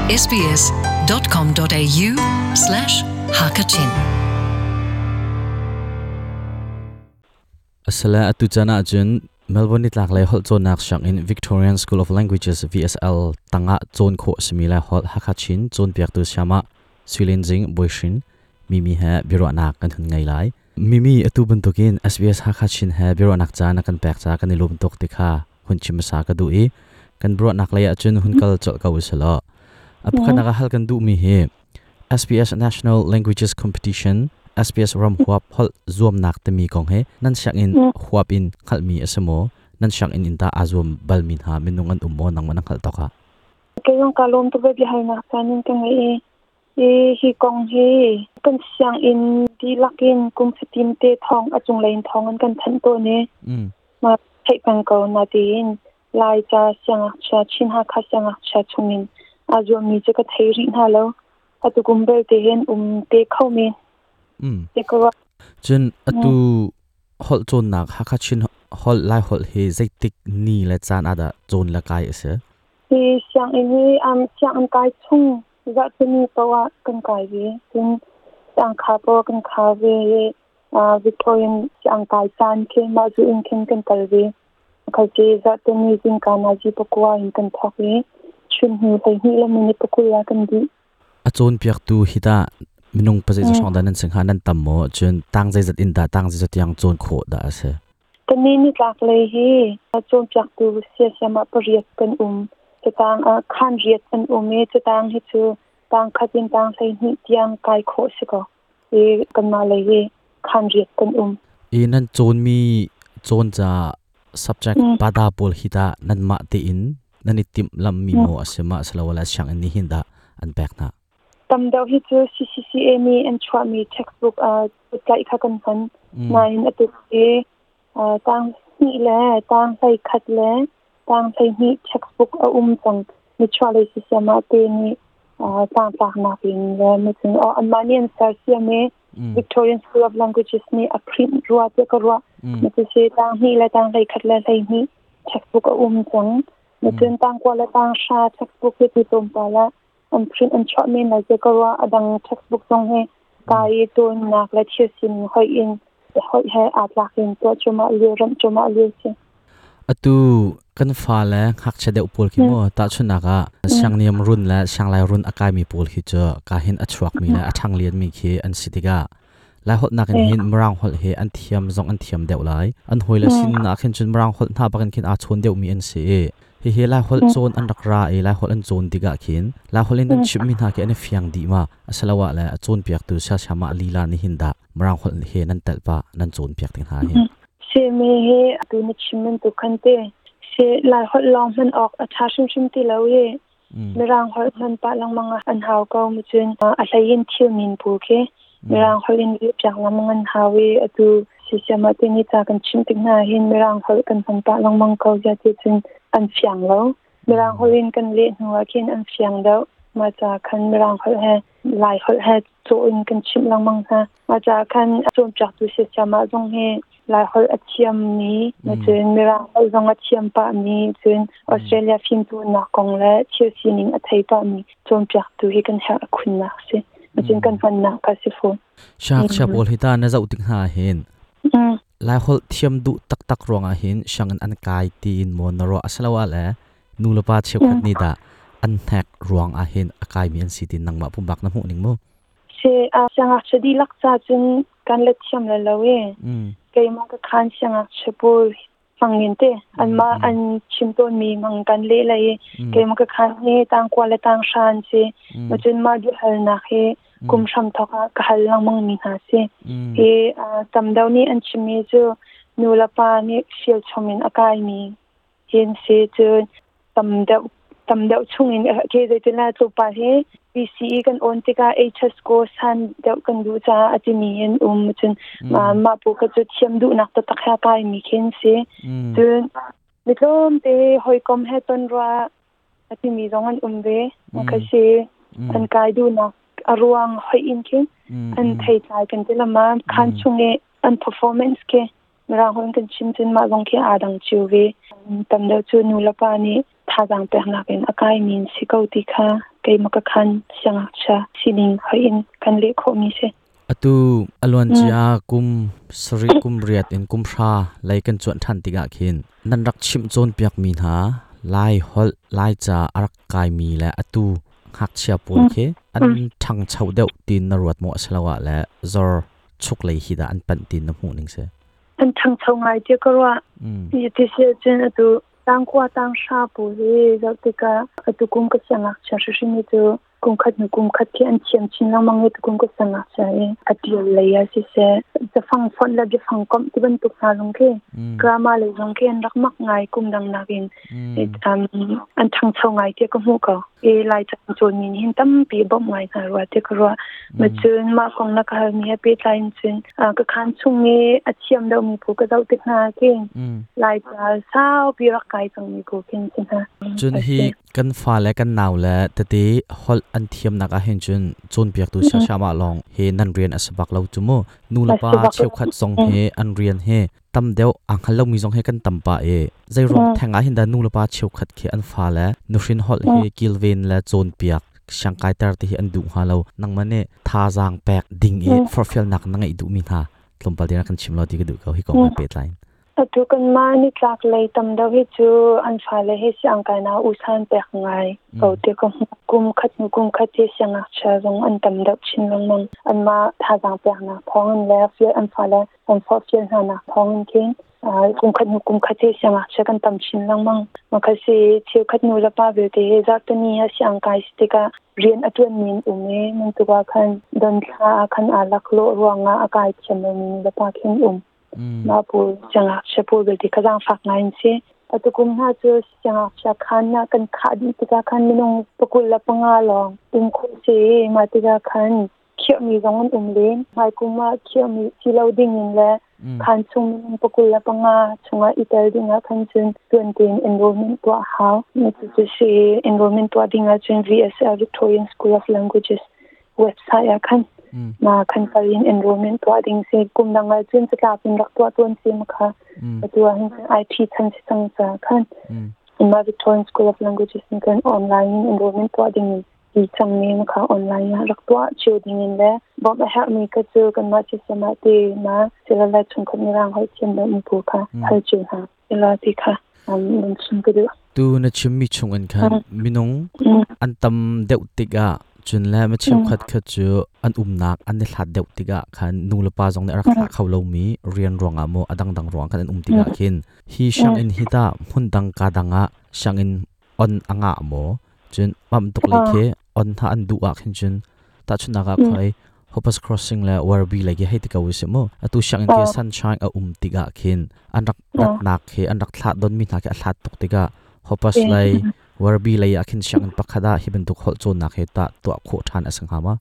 sbs.com.au/hakachin Asala atu chan ah cun Melbourne nitlak lei holh cawnnak sianginn Victorian School of Languages VSL tangah cawn khawh simi le holh Hakha Chin cawnpiaktu siamah Suilin Zing Boihrin Mimi he biaruahnak kan hun ngei lai. Mimi atu bantukin SBS Hakha Chin he biaruahnak caan a kan pek ca kan i lawm tuk ti kha hun chim hmasa ka duh i kan biaruahnak lei ahcun hun kal colh ko usih A pakhatnak ah hal kan duhmi hi SBS National Languages Competition SBS ram huap holh zuamnak timi kong hi nan sianginn huap in hngalhmi a si maw? Nan sianginn in tah aa zuam balmi hna minung an um maw nangmah na hngalh tawk ah? Kei zong kaa lawm tuk ve biahalnak caan in ka ngeih i hi hi kong hi kan sianginn dihlak in kum fatin te thawng a cunglei in thawng an kan thanh tawn i ma theih peng ko na tiin Laica siangngakchia Chin Hakha siangngakchia chungin aa zuammi cu ka thei rih hna lo. Atu kum belte hin um te kho men. Te ka ruah. Cun atu holh cawnnak Hakha Chin holh Lai holh hi zeitik ni le caan ah dah cawn le kai a si? Hi sianginn hi sianginn kai chung zarhpini paoh ah kan kai ve. Cun siangkha paoh kan khar ve i Victorian siang kai caan khi mah zu in khin kan kal ve. Khalte zarhteni zingka nazi pakua in kan thawk i chun hnu 12 le minute 20 ah kan dih. A cawnpiaktu hi tah minung pazei hrawng dah nan si hnga nan tam maw? Cun tang zeizat in dah tang zeizat tiang cawn khawh dah a si? Kannih nitlak lei hi cawnpiaktu siasiam ah pariat kan um. Catang ah khaan riat an um i catang hi cu tang khat in tang 12 tiang kai khawh si ko. I kanmah lei hi khaan riat kan um. I nan cawnmi cawn ca subject pada pawl hi tah nanmah tein nan i timhlamhmi maw a si ma asiloah sianginn nih hin dah an pek hna? Tam deuh hi cu CCCA nih an chuahmi textbook tlaih kha kan hman. Nain atu hi tang hnih le tang 11 le tang 12 textbook a um cang. Nichuahlei sisiam ah te nih tlangtlaknak in le macun anmah nih an sersiam i Victorian School of Languages nih a print rua tiah ka ruah. Macusi tang hnih le tang 11 le 12 textbook a um cang. Macun tang kua le tang hra textbook hi tu tlawmpal ah an print an chuah men lai tiah ka ruah. A dang textbook zong hi kai i cawnnak le thil sining hoih in hoih he aa tlak in tuah cuahmah lio ramh cuahmah lio si. Atu kan fale ngakchia deuh pawl khi mu tahchunhnak ah siangniam run le sianglai run a kaimi pawl khi cu ka hin a chuakmi le a ṭhanglianmi khi an si tikah Lai holh nakin hin Mirang holh hi an thiam zong an thiam deuh lai. An hawile sin ah khin cun Mirang holh hna bakin khin aa chawn deuhmi an si i hihi Lai holh cawn an rak ra i Lai holh an cawn tikah khin Lai holh in an chimhmi hna khi an i fiang dih ma asiloah le a cawnpiaktu siasiamah lila nih hin dah Mirang holh he nan telh pah nan cawnpiak ti hna hin. Simi hi atu na chim bantuk khan te si Lai holh lawng hman awk a ṭha hrimhrim ti lo i Mirang holh hman pah lengmang ah an hau ko mu cun a hlei in thil min pu khi Mirang holh in piak lengmang an hau i atu sisiam ah tini ca kan chim tik hna hin Mirang holh kan hman pah lengmang ko zia ti cun an fiang lo. Mirang holh in kan leh hnu ah khin an fiang deuh. Mah ca khan Mirang holh he Lai holh he cawh in kan chimh lengmang hna. Mah ca khan cawnpiaktu siasiam ah zong hi Lai holh a thiammi, cun Mirang holh zong a thiam pahmi, cun Australia fimcawnnak kong le thil sining a thei pahmi cawnpiaktu hi kan herh a khunnak a si. Cun kan hmannak kha si fawn. Siangngakchia pawl hi ta na zoh tik hna hin Lai holh thiam duh taktak ruangah hin sianginn an kai tiin maw na ruah asiloah le nu le pa cheukhat nih dah an hnek ruang ah hin a kaimi an si ti nangmah pumpak na hmuh ning mu? Si siangngakchia dihlak ca cun kan let thiam le lo i keimah ka khan siangngakchia pawl mangin te anmah an chim tawnmi mang kan leh lai i keimah ka khan hi tangkua le tanghra an si macun mah biahalnak hi kum hram thawk ah ka hal lengmang mi hna si hi tam deuh nih an chimmi cu nu le pa nih fial chom in a kaimi hin si cun tam deuh tam deuh chung in ke zeitin la tlawmpal hi PCE kan on tikah HS ko san deuh kan duh caah a timi in um cun mah pu kha cu thiam duhnak taktak he kai mi khin si cun mi tlawmte hawikom he ton rua a timi zong an um ve kha si an kai duhnak a ruang hoi in khin an thei tlai kan ti lama khan chung i an performance ke Mirang holh in kan chim cun mah zong khi aa dang cio ve. Tam deuh cu nu le pa nih thazaang peknak in a kaimi an si ko ti kha Keimah ka khan siangngakchia sining hoih in kan leh khawhmi si. Atu aluan cia kum sarih kum riat in kum hra lei kan cuanh ṭhan tikah khin nan rak chimh cawnpiakmi hna Lai holh Lai ca a rak kaimi le atu ngakchia pawl khi an ṭhangcho deuh tiin na ruat maw asiloah le zor chuk lei hi dah an panh tiin na hmuh ning si? An ṭhangcho ngai tiah ka ruah. Ti si ahcun atu tangkua tanghra pawl hi zoh tikah atu kum ka siangngakchia hrimhrim hi cu kum khat hnu kum khat khi an thiam chin lengmang i tukum ka siangngakchia i a ṭial lei ah siseh cafang fonh le biafang komh ti bantuk hna zong khi grammar lei zong khi an rak mak ngai kum dang nakin an ṭhangcho ngai tiah ka hmuh ko. I Laica cawnmi nih hin tampi bawmh ngai hna rua tiah ka ruah. Ma cun mah kong na ka halmi he pehtlai in cun ka khaan chung i a thiam deuhmi phu ka zoh tik hna khin Laica saupi rak kai cangmi phu khin si hna. Cun hi kan fa le kan nau le tete holh an thiamnak ah hin cun cawnpiaktu siasiamah lawng hi nan rian a si bak lo cu mu. Nu le pa cheukhat zong hi an rian hi tam deuh aa hngal lomi zong hi kan tam pah i zeiruang theng ah hin dah nu le pa cheukhat khi an fale nuhrin holh hi kilven le cawnpiak siangkaiter ti hi an duh hnga lo. Nangmah nih thazaang pek ding i forhfialnak na ngeih duhmi hna tlawmpal te na kan chim lo ti ka duh ko hi kong he pehtlai in. Atu kanmah nitlak lei tam deuh hi cu an fale hi siangkainak usan pek ngai ko ti ka hmuh. Kum khat hnu kum khat hi siangngakchia zong an tam deuh chin lengmang. Anmah thazaang peknak thawng in le an fale an forhfial hnanak thawng in khin kum khat hnu kum khat hi siangngakchia kan tam chin lengmang. Makhat si cheukhat nu le pa vialte hi zarhteni ah siangkai si tikah rian a ṭuanmi an um i nan tuk ah khan don thla ah khan aa laklawh ruangah a kai thiam lomi nu le pa khin um. Mah pawl siangngakchia pawl belte kha zaangfak ngai an si. Atu kum hna cu siangngakchia khaan ah kan khah dih tikah khan minung 25 lawng um khawh si i mah tikah khan khiahmi zong an um len. Hmaikum ah khiahmi si lo ding in le khaan chung minung 25 chungah i tel ding ah khan cun tuan tein enrollment tuah hau. Cucu si enrollment tuah ding ahcun VSL Victorian School of Languages website ah khan ma khan kal in enrollment tuah ding si. Kum dang ah cun catlap in rak tuah tuan si ma kha atu ah hin IT chan si cang ca khan ma Victorian School of Languages in kan online in enrollment tuah ding in ti cang mi ma kha online ah rak tuah cio ding in le bawmh a herh mi ka cu kan mah si sama te ma silala chungkhat mirang hoi thiam lo mu pu kha hal cio hna ila ti kha nan chim ka duh. Tu na chimmi chung in khan minung an tam deuh tikah cun le mi cheukhat kha cu an umnak an i hlat deuh tikah khan nu le pa zong nih a rak thlah kho lomi rian ruangah maw a dangdang ruang khan an um tikah khin hi sianginn hi tah hmun dang ka dang ah sianginn on a ngah maw? Cun mam tuk lei khi on hna an duh ah khin cun tahchunhnak ah khoi Hoppers Crossing le Werribee lei khi hei ti ko usih mu. Atu sianginn khi Sunshine a um tikah khin an rak ratnak khi an rak thlah donmi hna khi a hlat tuk tikah Hoppers lei Werribee lei ah khin sianginn pakhat ah hi bantuk holh cawnnak hi tah tuah khawh ṭhan a si hnga ma?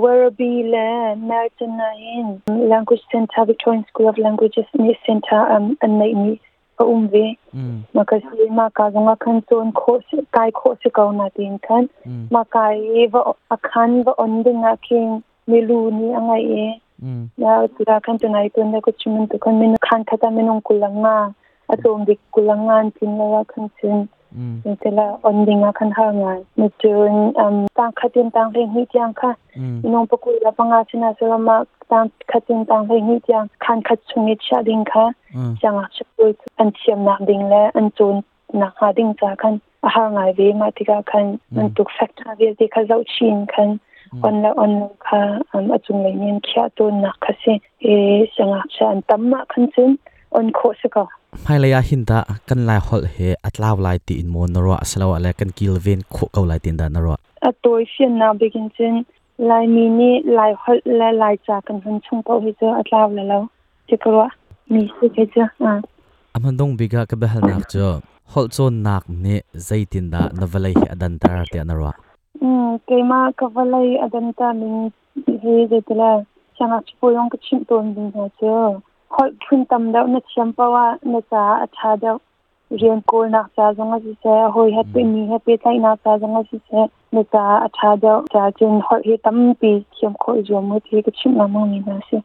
Werribee le Merton ah hin Language Centre Victorian School of Languages nih center an neihmi a um ve. Mah ka si mah ka zong ah khan cawn khawh kai khawh si ko na tiin khan mah kai i va a khan va on ding ah khin milu nih a ngaih i na tira khan tunai tun le ko chimun tu khan minu khan khata minung kulanga a tlawm bik kulanga an tin lo ah khan cun tela on ding ah khan har ngai. Mi cun tang khatin tang hlei hnih tiang kha minung pakul la panga china salama tang khatin tang hlei hnih tiang khan khat chung i chia ding kha siangngakchia pawl an thiamnak ding le an cawn nak hnga ding ca khan a har ngai ve. Mah tikah khan bantuk factor vialte kha zoh chin khan on le on lo kha a cunglei nih an khiah tawnnak kha si i siangngakchia an tam mah khan cun on khawh si ko. Hmailei ah hin dah kan Lai holh hi a tlau lai tiin maw na ruah asiloah le kan kilven khawh ko lai tiin dah na ruah? A tawi fiannak bik in cun Laimi nih Lai holh le Laica kan hun chung paoh hi cu a tlau le lo ti ka ruah mi si kei cu. A hmandung bik ah ka biahalnak cu holh cawnnak nih zeitindah na vawlei hi a danter tiah na ruah? Keimah ka vawlei a danter ning hi zeitile siangngakchia pawl zong ka chimh tawn ding hna cu holh phun tam deuh na thiam paoh ah na caah a ṭha deuh. Rian kawlnak ca zong ah siseh, hawi he mi he pehtlaihnak ca zong ah siseh, na caah a ṭha deuh. Ca cun holh hi tampi thiam khawh i zuam u ti ka chimh lengmang mi hna a si.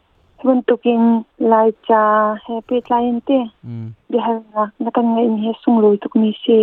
Bantukin Laica he pehtlai in te biahalnak na kan ngeih mi hi sunglawi tuk mi si.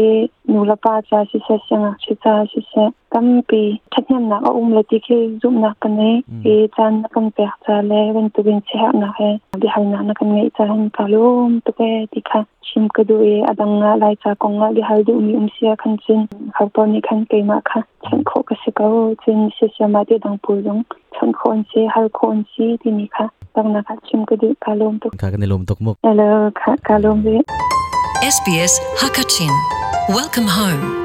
Nu le pa ca siseh, siangngakchia ca siseh, tampi ṭhathnemnak a um le ti khi zumhnak ka ngei. Hi caan na kan pek ca le bantukin siaherhnak he biahalnak na kan ngeih ca hin ka lawm tuk ee ti kha chim ka duh i a dang ah Laica kong ah biahal duhmi um si ah khan cun ho nih khan keimah kha chawnh khawh ka si ko. Cun siasiam ah ti dang pawl zong chawnh khawh an si, hal khawh an si timi kha donghnak ah chim ka duh. Ka lawm tuk. Ka kan i lawm tuk mu. Hello, ka lawm ve. SBS Hakachin. Welcome home.